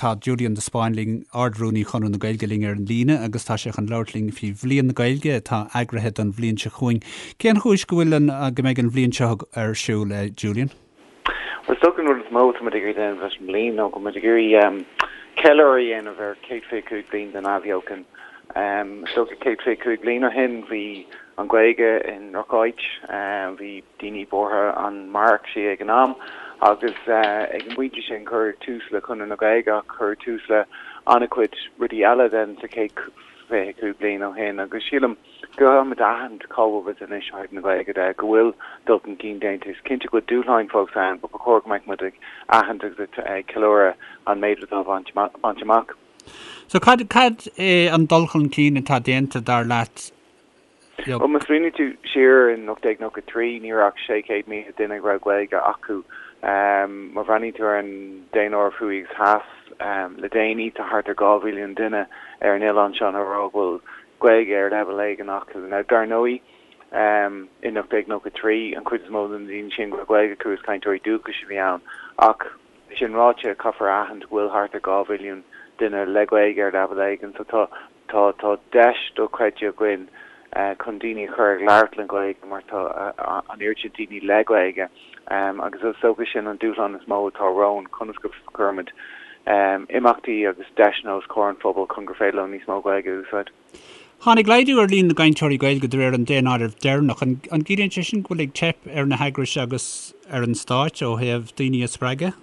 Tá Julian de Spáinn linn, Ard-Rúnaí Chonradh na Gaeilge linn ar an líne agus tá sé chun labhairt linn faoi Bhliain na Gaeilge atá eagraithe don bhliain seo chugainn. Cén chúis go bhfuil an, go mbeidh an bhliain seo ar siúl, Julian? Bhuel, is dócha an rud is mó atá muid ag iarraidh déanamh leis an mbliain ná go bhfuil muid ag iarraidh ceiliúradh a dhéanamh ar 125 bliain den athbheochan. Is dócha 125 bliain ó shin bhí an Ghaeilge i ndrocháit, bhí daoine buartha an mairfeadh sí ag an am agus ag an bpointe sin cuireadh tús le Conradh na Gaeilge ach cuireadh tús le an-chuid rudaí eile then sa chéad 25 bliain ó shin agus sílim go gcaithfimid a aithint cá bhfuil muid anois ó thaobh na Gaeilge de, go bhfuil dul chun cinn déanta. Is cinnte go bhfuil dúshláin fós ann but ba chóir go mbeadh muid ag aithint agus ag ceiliúradh an méid atá bainte amach. So cad cad é an dul chun cinn atá déanta dar leat Bhuel, má smaoiníonn tú siar in 1893, ní raibh ach 600,000 duine a raibh Gaeilge acu. Má bhreathnaíonn tú ar an daonáireamh thuaidh agus theas le déanaí, tá thart ar 2 mhilliún duine ar an oileán seo a rá go bhfuil Gaeilge ar leibhéal éigin acu. Now, dar ndóigh, in 1893, an chuid is mó de na daoine sin go raibh Gaeilge acu, is cainteoirí dúchais a bhí ann. Ach, sin ráite, caithfear a aithint go bhfuil thart ar 2 mhilliún duine le Gaeilge ar leibhéal éigin, so tá Tá tá deis dochreidte againn chun daoine a chur ag labhairt na Gaeilge mar tá an oiread sin daoine le Gaeilge agus is dócha sin an dúshlán is mó atá romhainn, conas go gcuirimid imeachtaí agus deiseanna os comhair an phobail chun gur féidir leo níos mó Gaeilge a úsáid. Tháinig laghdú ar líon na gcainteoirí Gaeilge de réir an daonáirimh deireanach. An gciallaíonn sé sin go bhfuil ag teip ar na heagrais agus ar an stáit ó thaobh daoine a spreagadh?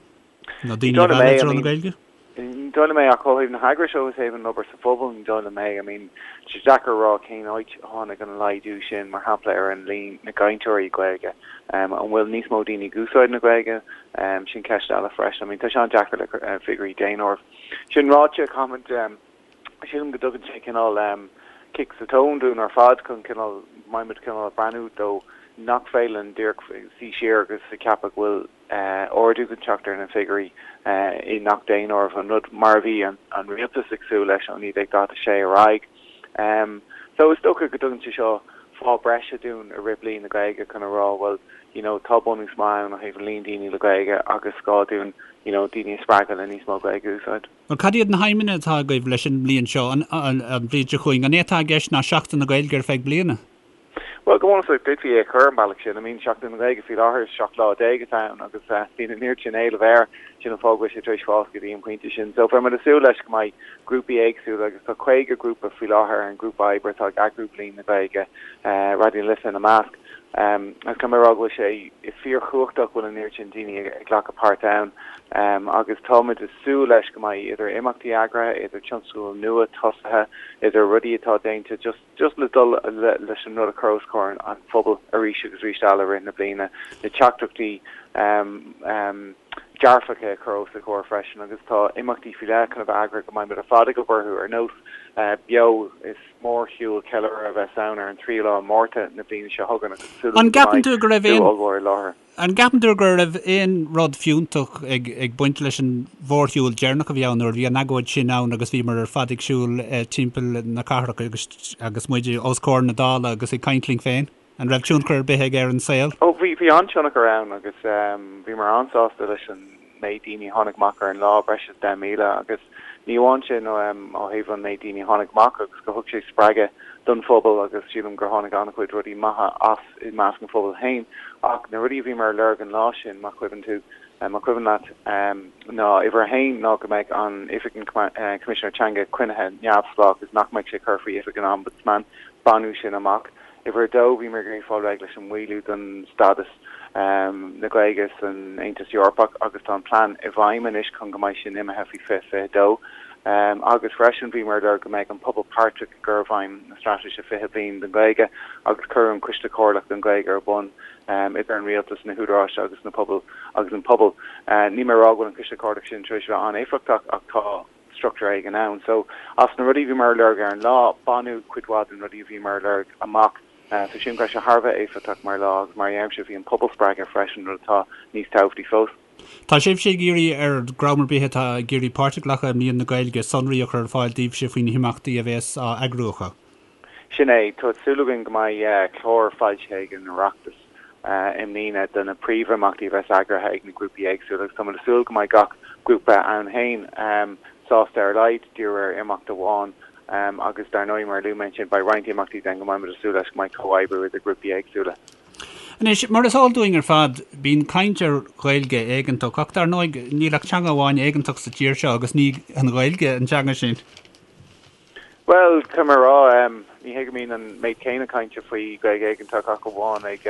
Nó daoine a mhealladh i dtreo na Gaeilge? Ní dóigh liom é, ach ó thaobh na heagrais ó thaobh an obair sa phobal, ní dóigh liom é. I mean, tá sé deacair a rá cén áit a tháinig an laghdú sin, mar shampla, ar an líon na gcainteoirí Gaeilge. An bhfuil níos mó daoine ag úsáid na Gaeilge? Sin ceist eile freisin. I mean, tá sé an-deacair le figiúirí daonáirimh. Sin ráite, caithfimid, sílim go dtugann sé cineál cic sa tóin dúinn ar fad chun cineál, mbeidh muid cineál ag breathnú dó nach féidir linn díreach suí siar agus a cheapadh go bhfuil ardú chun teacht ar na figiúirí i ngach daonáireamh, an rud mar a bhí an rialtas ag súil leis ó 1946 ar aghaidh. So is dócha go dtugann sé seo fáth breise dúinn i rith Bliain na Gaeilge chun a rá bhuel you know tá bunús maith ann ó thaobh an líon daoine le Gaeilge agus gá dúinn you know daoine a spreagadh le níos mó Gaeilge a úsáid. Bhuel cad iad na haidhmeanna atá agaibh leis an mbliain seo, an bhliain seo chugainn? An é atá i gceist ná Seachtain na Gaeilge ar feadh bliana? Bhuel, go bunúsach, d'fhéadfaí é a chur an bealach sin. I mean, Seachtain na Gaeilge faoi láthair, is 17 lá atá ann agus bíonn an oiread sin éileamh air, sin an fáth go bhfuil sé tar éis fás go dtí an pointe sin. So, beidh muid ag súil leis go mbeidh grúpaí éagsúla agus tá 50 grúpa faoi láthair ar an ngrúpa oibre atá ag eagrú Bliain na Gaeilge, Raidió na Life ina measc. Agus caithfidh mé a rá go bhfuil sé fíorchumhachtach go bhfuil an oiread sin daoine ag glacadh páirt ann agus táimid ag súil leis go mbeidh idir imeachtaí eagraithe, idir tionscadail nua tosaithe, idir rudaí atá déanta just, just le dul leis an rud a chur os comhair an phobail arís agus arís eile i rith na bliana, na teachtaireachtaí dearfacha a chur os a gcomhair freisin agus tá imeachtaí faoi leith chun a bheith eagraithe go mbeidh muid ar fad ag obair orthu, ar nós Beo, is mórshiúl ceiliúrtha a bheas ann ar an tríú lá Márta na bliana seo chugainn agus súil agam go mbeidh slua ollmhór i láthair. An gceapann tú go raibh aon rud fiúntach ag baint leis an mhórshiúl deireanach a bhí ann nuair a bhí an agóid sin ann agus bhíomar ar fad ag siúl timpeall na cathrach agus agus muid os comhair na Dála agus ag caint linn féin? An raibh tionchar ar bith aige ar an saol? Ó, bhí, bhí an-tionchar ann agus bhíomar an-sásta leis an méid daoine a tháinig amach ar an lá, breis is 10,000, agus ní amháin sin ó thaobh an méid daoine a tháinig amach agus go thug sé spreagadh don phobal agus sílim gur tháinig an-chuid rudaí maithe as i measc an phobail féin. Ach na rudaí a bhíomar a lorg an lá sin, má chuimhin tú, má cuimhin leat, ná uimhir a haon ná go mbeidh an Oifig an Choimisinéir Teanga coinnithe neamhspleách agus nach mbeidh sé curtha faoi Oifig an Ombudsman, baineadh sin amach. Uimhir a dó, bhíomar ag iarraidh fáil réidh leis an maolú don stádas na Gaeilge san Aontas Eorpach agus tá an plean i bhfeidhm anois chun go mbeidh sin imithe faoi 2022. Agus freisin bhíomar ag lorg go mbeidh an pobal páirteach i gcur i bhfeidhm na Straitéise 20 Bliain don Ghaeilge agus cuireadh an Coiste Comhairleach don Ghaeilge ar bun idir an rialtas, na húdaráis agus na pobail agus an pobal. Níl mé ag rá go bhfuil an Coiste Comhairleach sin tar éis a bheith an-éifeachtach ach tá struchtúr éigin ann. So, as na rudaí a bhíomar ag lorg ar an lá, baineadh cuid mhaith de na rudaí a bhíomar ag lorg amach. So sílim go raibh sé thar a bheith éifeachtach mar lá agus mar a deirimse bhí an pobal spreagtha freisin, rud atá níos tábhachtaí fós. Tá sibhse ag iarraidh ar dhream ar bith atá ag iarraidh páirt a ghlacadh i mBliain na Gaeilge sonraí a chur ar fáil daoibhse faoi na himeachtaí a bheas á eagrú acu. Sin é, tá súil againn go mbeidh clár foilsithe ag an Oireachtas i mbliana do na príomhimeachtaí a bheas eagraithe ag na grúpaí éagsúla agus táimid ag súil go mbeidh gach. grúpa ann féin sásta ar a laghad díriú ar imeacht amháin agus dar ndóigh mar a luaigh mé ansin beidh roinnt imeachtaí den go mbeidh muid ag súil leis go mbeidh comhoibriú idir grúpaí éagsúla. Anois, mar is eol dúinn ar fad, bíonn caint ar Ghaeilge éigeantach ach dar ndóigh níl ach teanga amháin éigeantach sa tír seo agus ní an Ghaeilge an teanga sin. Bhuel, caithfidh mé a rá, ní hé go mbíonn an méid céanna cainte faoi Ghaeilge éigeantach ach amháin ag,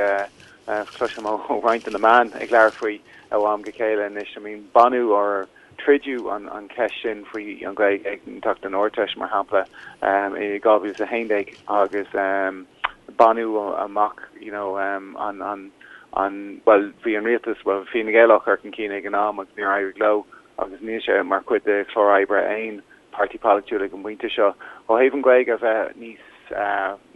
cloisim ó roinnt de na meáin ag labhairt faoi ó am go chéile anois. I mean, baineadh or troideadh an cheist sin faoi an Ghaeilge éigeantach don Ardteist, mar shampla, i 2011 agus baineadh amach, you know, an, an, an, bhuel, bhí an rialtas, bhuel, Fine Gael á chur chun cinn ag an am agus níor éirigh leo agus níl sé mar chuid de chlár oibre aon páirtí polaitiúil ag an bpointe seo. Ó thaobh an Ghaeilge a bheith níos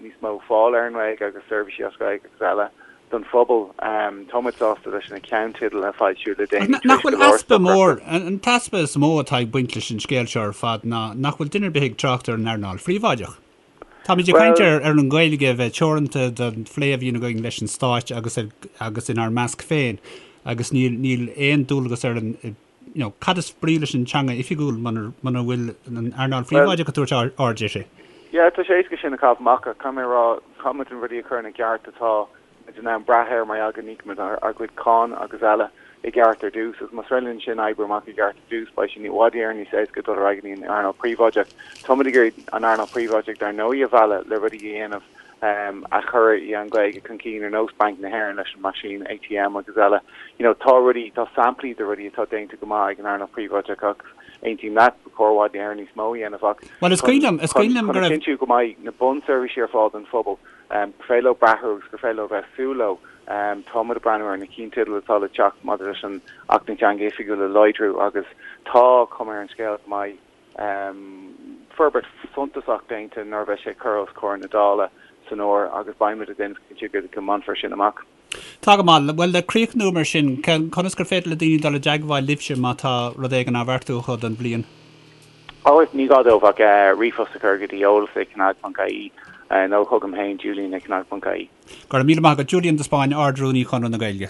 níos mó fáil ar an nGaeilge agus seirbhísí as Gaeilge agus eile don phobal, tá muid sásta leis na ceannteidil a foilsíodh le déanaí tar éis go leor easpa mór, an t-easpa is mó atá ag baint leis an scéal seo ar fad ná nach bhfuil duine ar bith ag trácht ar an earnáil phríobháideach. Táimid ag caint ar ar an nGaeilge a bheith teoranta don phlé a bhíonn againn leis an Stát agus agus inár measc féin agus níl níl aon dualgas ar an you know, cad is brí leis an teanga oifigiúil muna bhfuil an earnáil phríobháideach ag tabhairt aird uirthi? Yeah, tá sé éasca sin a chaitheamh amach ach caithfidh mé a rá, caithfidh muid na rudaí a chur ina gceart atá muid in ann brath air mar gheall go n-íocaimid ár gcuid cáin agus eile i gceart ar dtús agus más féidir linn sin oibriú amach i gceart ar dtús beidh sé i bhfad Éireann níos éasca dul ar aghaidh go dtí an earnáil phríobháideach. Tá muid ag iarraidh an earnáil phríobháideach dar ndóigh a mhealladh le rudaí a dhéanamh a chuirfidh an Ghaeilge chun cinn ar nós Banc na hÉireann leis an meaisín ATM agus eile. You know, tá rudaí, tá samplaí de rudaí atá déanta go maith ag an earnáil phríobháideach ach aontaím leat, ba chóir i bhfad Éireann níos mó a dhéanamh ach Bhuel, is cuimhin liom, is cuimhin liom go raibh. chun a chinntiú go mbeidh na bunseirbhísí ar fáil don phobal, gur féidir leo brath orthu agus gur féidir leo bheith ag súil leo. Tá muid ag breathnú ar na ceannteidil atá le teacht maidir leis an Acht na Teanga Oifigiúil a láidriú agus tá cuma ar an scéal go mbeidh forbairt suntasach déanta nuair a bheidh sé curtha os comhair na Dála san fhómhar agus beidh muid ag déanamh cinnte go mbainfear sin amach. Tá go maith. Bhuel, le críochnú mar sin, conas gur féidir le daoine dul i dteagmháil libhse má tá rud éigin á bheartú acu don bhliain? Ó, ní gá dóibh ach ríomhphost a chur go dtí eolas ag cnag.ie nó chugam féin, julian ag cnag.ie. Go raibh míle maith agat, Julian de Spáinn, Ard-Rúnaí Chonradh na Gaeilge.